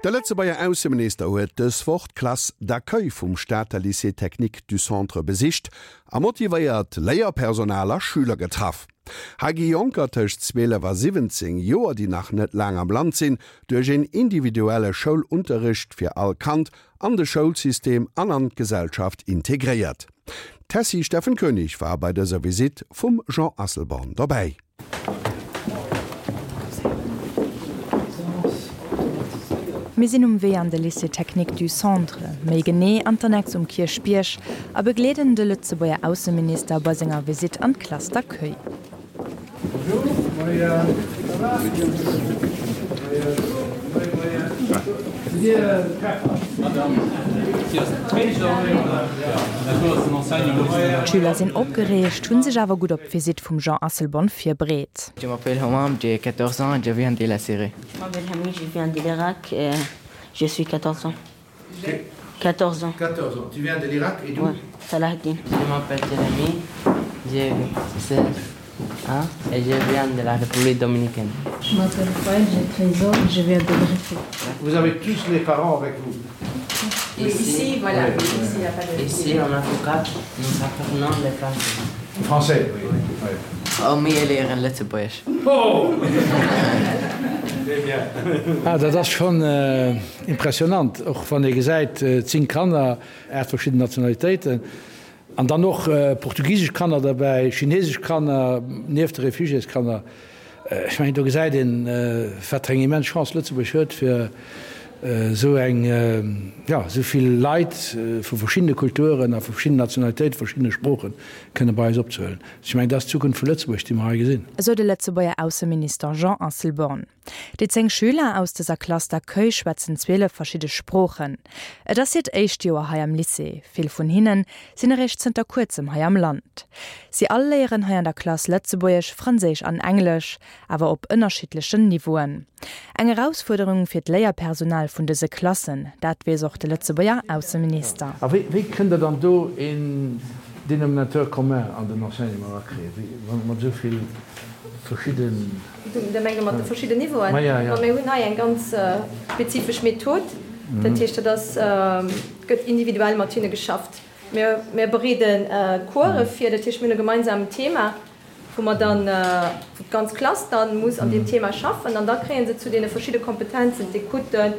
De Lëtzebuerger Ausseminister huet dës Woch d'Classe d'accueil vum Stater Lycée technique du Centre besicht a motivéiert Léierpersonal a Schüler getraff. Hei gi Jonker tëscht 12 a 17 Joer, déi nach net laang am Land sinn, duerch een individuelle Schoulunterricht fir all Kand an de Schoulsystem an an d'Gesellschaft integréiert. D'Tessy Steffen Koenig war bei dëser Visitt vum Jean Asselborn dobäi. Mir sinn um Wee an de Lycée Technique du Centre, méi genee an d'Annex um Kierchbierg, a begleeden de Lëtzebuerger Ausseminister bei senger Visitt an d'Classe d'accueil. D'Schüler sinn opgereegt, hunn sech awer gutt op d'Visitt vum Jean Asselborn virbereet. Je m'appelle Homam, j'ai 14 ans, je viens de la Syrie. Je m'appelle Hamid, je viens de l'Irak, je suis 14 ans. 14 ans. 14 ans. Tu viens de l'Irak et d'où? Ouais, Salahaddin. Je m'appelle Jérémy, j'ai 16 ans et je viens de la République dominicaine. Je m'appelle Fouad, j'ai 13 ans, je viens de Brésil. Vous avez tous les parents avec vous? Ici, ici voilà, oui. Ici, y a pas de... Ici en Afrika, nous apprenons le français. Français, oui. oui. oui. Oh, mir léieren Lëtzebuergesch. Oh! Très bien. Ah, dat ass schonn impressionant, och wann ee gesäit, 10 Kanner, 8 verschidden Nationalitéiten an dann och portugisesch Kanner derbäi, chinesesch Kanner, nieft de Refugiéskanner. Ech mengen, do gesäit een, wat fir eng immens Chance Lëtzebuerg huet, fir esou eng, jo, esou vill Leit vu verschiddene Kulturen a vu verschiddenen Nationalitéiten, verschiddene Sproochen kënne bei eis opzehuelen. Ech mengen, dat ass d'Zukunft vu Lëtzebuerg, déi mer hei gesinn. Esou de Lëtzebuerger Ausseminister Jean Asselborn. Déi 10 Schüler aus dëser Classe d'accueil schwätzen 12 verschidde Sproochen. Et ass hiert éischt Joer hei am Lycée. Vill vun hinne sinn eréischt zënter kuerzem hei am Land. Si all léieren hei an der Klass Lëtzebuergesch, Franséisch an Englesch, awer op ënnerschiddlechen Niveauen. Eng Erausfuerderung fir d'Léierpersonal vun dëse Klassen, dat weess och de Lëtzebuerger Ausseminister. A wéi kënnt Der dann do een Dénominateur commun an den Enseignement erakréien, mat esou vill verschidden. Du mengs mat de verschidden Niveauen? Ma mir hunn hei eng ganz spezifesch Method. Dat heescht, dat ass, gëtt individuell mat hinne geschafft. Mir, mir bereede Course vir, dat heescht, mir hunn e gemeinsamen Thema, wou mer dann, wou d'ganz Klass dann muss an deem Thema schaffen an da kréie se zu deene verschidde Kompetenzen, d'Écoute,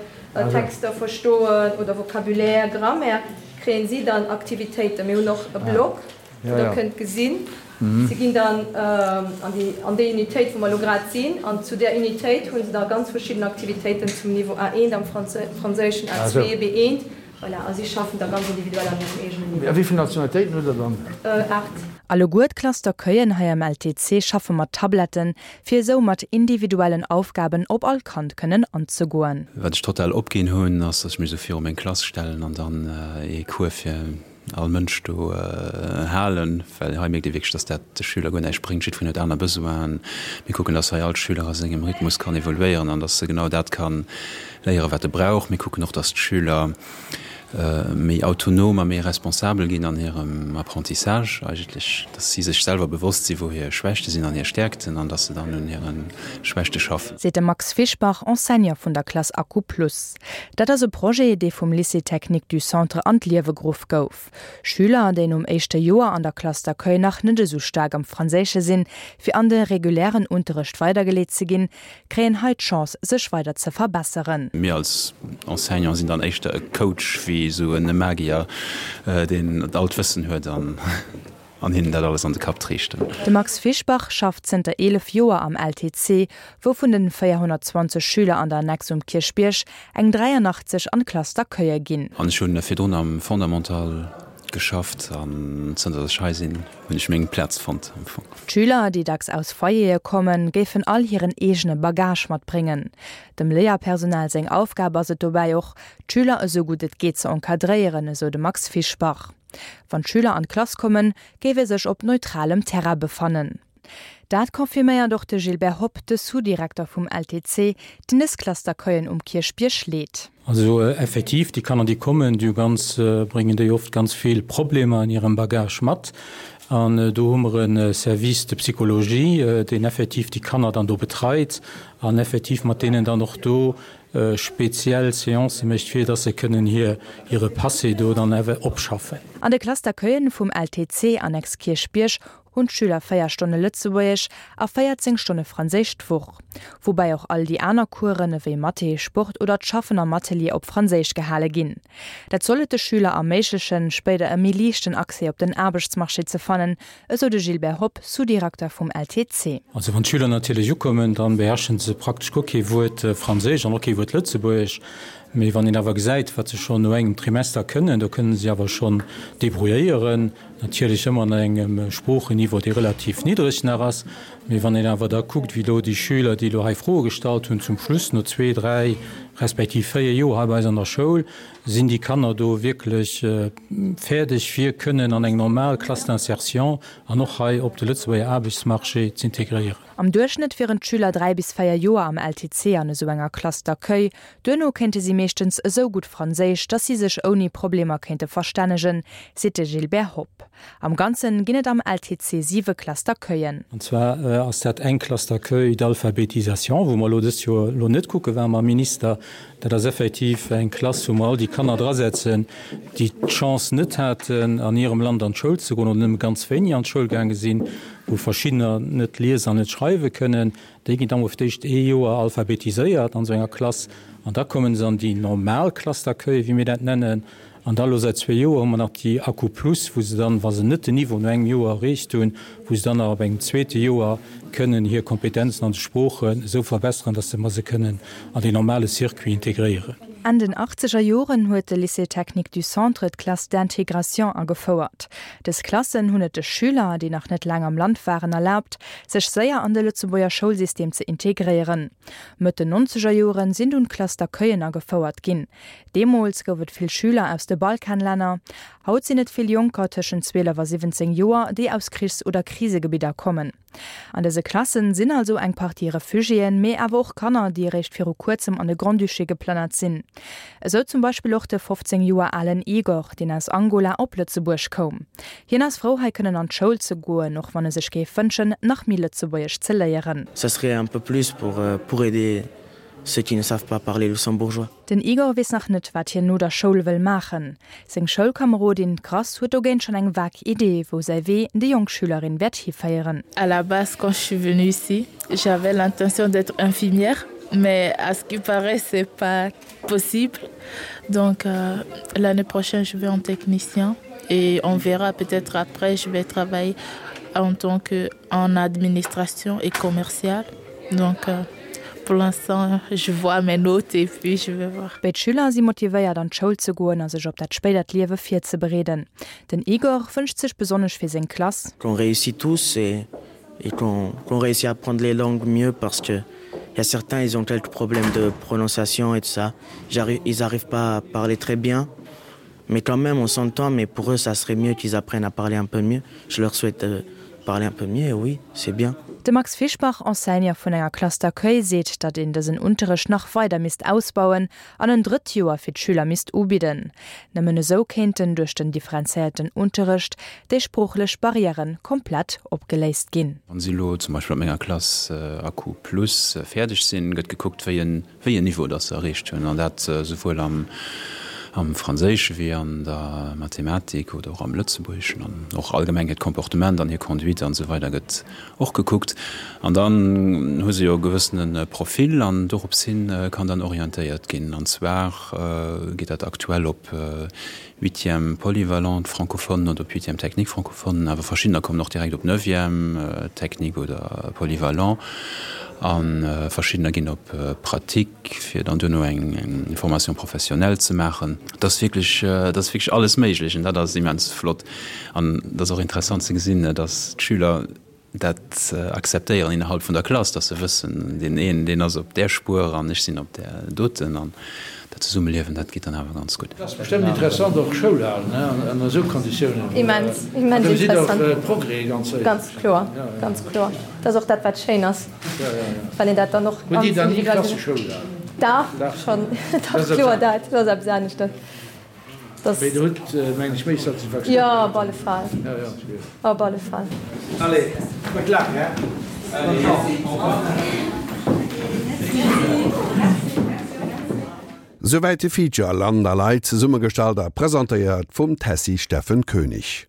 Texter verstoen oder Vocabulaire, Grammaire, kréie si dann Aktivitéiten. Mir hunn och e Blog, wou Der kënnt gesinn, si ginn dann an déi, an déi Unitéit, wou mer elo grad sinn, an zu där Unitéit hu se da ganz verschidden Aktivitéiten zum Niveau A1 am Franséischen, A2, B1, voilà, a si schaffen da ganz individuell an hirem eegenen Niveau. A wéi vill Nationalitéiten hutt Der dann? 8. Alleguer d'Classe d'accueillen hei am LTC schaffe mat Tabletten, fir esou mat individuellen Aufgaben op all Kand kënnen anzegoen. Wat ech total opginn hunn, ass, dass ech mech esou viru meng Klass stellen an dann ee Cours fir all Mënsch do halen, well hei mierkt ee wierklech, dass dat de Schüler guer näischt bréngt. Jiddwereen huet aner Besoinen. Mir kucken, dass hei all Schüler a sengem Rhythmus kann evoluéieren an dass e genau dat ka léieren, wat e brauch. Mir kucken och, dass d'Schüler méi autonom a méi responsabel ginn an hirem Apprentissage eigentlech, dass si sech selwer bewosst sinn, wou hir Schwächte sinn an hir Stäerkten an dass se dann un hire Schwächte schaffen. Seet de Max Fischbach, Enseignant vun der Klass Accu Plus. Dat ass e Projet, dee vum Lycée technique du Centre an d'Liewe geruff gouf. Schüler, déi nom éischte Joer an der Classe d'accueil nach net esou staark am Franséische sinn, fir an de regulären Unterrecht weidergeleet ze ginn, kréien hei d'Chance, sech weider ze verbesseren. Mir als Enseignant sinn dann éischter e Coach wéi esou e Magier, deen all d'Wëssen huet an. An hinnen dat alles an de Kapp triichten. De Max Fischbach schafft zënter 11 Joer am LTC, wou vun den 420 Schüler an der Annex um Kierchbierg eng 83 an d'Klass d'accueille ginn. An ech hunn virdrun am Fondamental geschafft an zënter dass ech hei sinn, hunn ech meng Plaz fonnt am Fong. D'Schüler, déi dacks aus Foyere kommen, géifen all hiren eegene Bagage matbréngen. Dem Léierpersonal seng Aufgab ass et dobäi och, d'Schüler esou gutt et geet ze encadréieren, esou de Max Fischbach. Wann d'Schüler an d'Klass kommen, géif ee sech op neutralem Terrain befannen. Dat confirméiert och de Gilbert Hopp, de Sous-Direkter vum LTC, deen dës Classe d'accueillen um Kierchbierg leet. Also effektiv, déi Kanner, déi kommen, déi hu ganz, bréngen déi oft ganz vill Problemer an hirem Bagage mat. An do hu mer e Service de psychologie, deen effektiv déi Kanner dann do betreit an effektiv mat deenen dann och do speziell Seancë mécht, fir dass se kënnen hir hire Passé do dann awer opschaffen. An de Classe d'accueillen vum LTC Annex Kierchbierg hunn d'Schüler 4 Stonne Lëtzebuergesch a 14 Stonne Franséisch d'Woch, woubäi och all déi aner Coursen ewéi Mathé, Sport oder d'Schaffen am Atelier op Franséisch gehale ginn. Dat soll et de Schüler erméiglechen, spéider e méi liichten Accès op den Aarbechtsmarché ze fannen, esou de Gilbert Hopp, Sous-Direkter vum LTC. Also wann d'Schüler natierlech ukommen, da beherrschen se praktesch guer kee Wuert Franséisch an och kee Wuert Lëtzebuergesch. Mee wann een awer gesäit, wat se schonn no engem Trimester kënnen, do kënnen se awer schonn debrouilléieren, natierlech ëmmer an engem Sproocheniveau, dee relativ niddreg nach ass. Mee wann een awer da kuckt, wéi elo déi Schüler, déi elo hei Froe gestallt hunn, zum Schluss no zwee, dräi respektiv véier Joer hei bei eis an der Schoul, sinn déi Kanner do wierklech fäerdeg fir kënnen an eng normal Classe d'insertion an och hei op de Lëtzebuerger Aarbechtsmarché z'integréieren. Am Duerchschnëtt wieren d'Schüler 3 bis 4 Joer am LTC an esou enger Classe d'accueil. Duerno kéinte si meeschtens esou gutt Franséisch, datt si sech ouni Problemer kéinte verstännegen, seet de Gilbert Hopp. Am Ganze ginn et am LTC siwe Classe d'accueillen. An zwar ass dat eng Classe d'accueil d'alphabétisation, wou mer elo dëst Joer elo net kucke waren mam Minister. Dat ass effektiv eng Klass, wou mer all déi Kanner drasetzen, déi d'Chance net haten, an hirem Land an d'Schoul ze goen oder nëmme ganz wéini an d'Schoul gaange sinn, wou verschiddener net liesen an net schreiwe kënnen. Déi ginn da mol fir d'éischt ee Joer alphabetiséiert an esou enger Klass an da komme se an déi normal Classe d'accueil, wéi mir dat nennen. An da elo säit zwee Joer hu mer nach déi Accu Plus, wou se dann, wa se net den Niveau no engem Joer erreecht hunn, wou se dann nach op engem zweete Joer kënnen hir Kompetenzen an de Sproochen esou verbesseren, dass se mer se kënnen an deen normale Circuit integréieren. Enn den achtzeger Joren huet de Lycée technique du Centre d'Classes d'intégration agefouert. Dës Klassen hunn et de Schüler, déi nach net laang am Land waren, erlaabt, sech séier an de Lëtzebuerger Schoulsystem ze integréieren. Mëtt den nonzeger Joren sinn dunn d'Classes d'accueillen agefouert ginn. Deemools gouf et vill Schüler aus de Balkanlänner. Haut sinn et vill Jonker tëschent 12 a 17 Joer, déi aus Krichs oder Krisegebidder kommen. An dëse Klassen sinn also eng Partie Refugiéen, mee awer och Kanner, déi eréischt viru kuerzem an de Grand-Duché geplënnert sinn. Esou zum Beispill och de 15 Joer alen Igor, deen aus Angola op Lëtzebuerg koum. Hien ass frou, hei kënnen an d'Schoul ze goen, och wann e sech géif wënschen, nach méi Lëtzebuergesch ze léieren. Ça serait un peu plus pour pour aider ceux qui ne savent pas parler luxembourgeois. Den Igor weess nach net, wat hien no der Schoul wëll maachen. Seng Schoulkamerodin, d'Grace, huet dogéint schonn eng vag Idee, wou säi Wee déi jonk Schülerin wäert hiféieren. À la base quand je suis venue ici, j'avais l'intention d'être infirmière, mais à ce qui paraît c'est pas possible. Donc l'année prochaine je vais en technicien et on verra peut-être après je vais travailler en tant que en administration et commercial. Donc pour l'instant je vois mes notes et puis je vais voir. Béid Schüler si motivéiert an d'Schoul ze goen a sech op dat spéidert Liewe virzebereeden. Den Igor wënscht sech besonnesch fir seng Klass. Qu'on réussit tous et et qu'on qu'on réussit à apprendre les langues mieux parce que il y a certains ils ont quelques problèmes de prononciation et tout ça. Ils arrivent pas à parler très bien. Mais quand même on s'entend, mais pour eux ça serait mieux qu'ils apprennent à parler un peu mieux. Je leur souhaite de parler un peu mieux, oui, c'est bien. De Max Fischbach, Enseignant vun enger Classe d'accueil, seet, datt een dësen Unterrecht nach weider misst ausbauen an en drëtt Joer fir d'Schüler misst ubidden. Nëmmen esou kéinten duerch den differenzéierten Unterrecht déi sproochlech Barrièrë komplett opgeléist ginn. Wann si elo zum Beispill op menger Klass Accu Plus fäerdeg sinn, gëtt gekuckt, wéi en wéi en Niveau dass se erreecht hunn, an dat souwuel am am Franséische wéi an der Mathematik oder och am Lëtzebuergeschen an och allgemeng hiert Comportement an hir Conduite an esou weider gëtt och gekuckt. An dann hu se jo e gewëssene Profil an dorops hin kann dann orientéiert ginn. An zwar geet dat aktuell op Huitième polyvalente francophone oder op Huitième technique francophone, awer verschiddener kommen och direkt op Neuvième technique oder polyvalent a verschiddener ginn op Pratique, fir dann duerno eng Formation professionnelle ze maachen. Et ass wierklech, et ass wierklech alles méiglech an dat ass immens flott. An et ass och interessant ze gesinn, dass d'Schüler dat akzeptéieren innerhalb vun der Klass, dass se wëssen, deen een, deen ass op där Spuer an ech sinn op där doten an dat Zesummeliewen, dat geet dann awer ganz gutt. Et ass bestëmmt interessant och Schoul halen an esou Konditiounen. Immens, immens interessant. Do gesitt och Progrès ganz séier. Ganz kloer, ganz kloer. Dat ass och dat, wat schéin ass, wann een dat dann och ganz individuell. Hutt Dir dann ni Klasseschoul gehalen? Dach, schonn, dach, kloer, dat ass eppes aneschters. Dass. Mee der hutt, mengen ech, méi Satisfaktioun. Jo, op alle Fall. Op alle Fall. Allez, gutt Luck, hein? Bonne chance. Souwäit de Feature Land a Leit, zesummegestallt a presentéiert vum Tessy Steffen Koenig.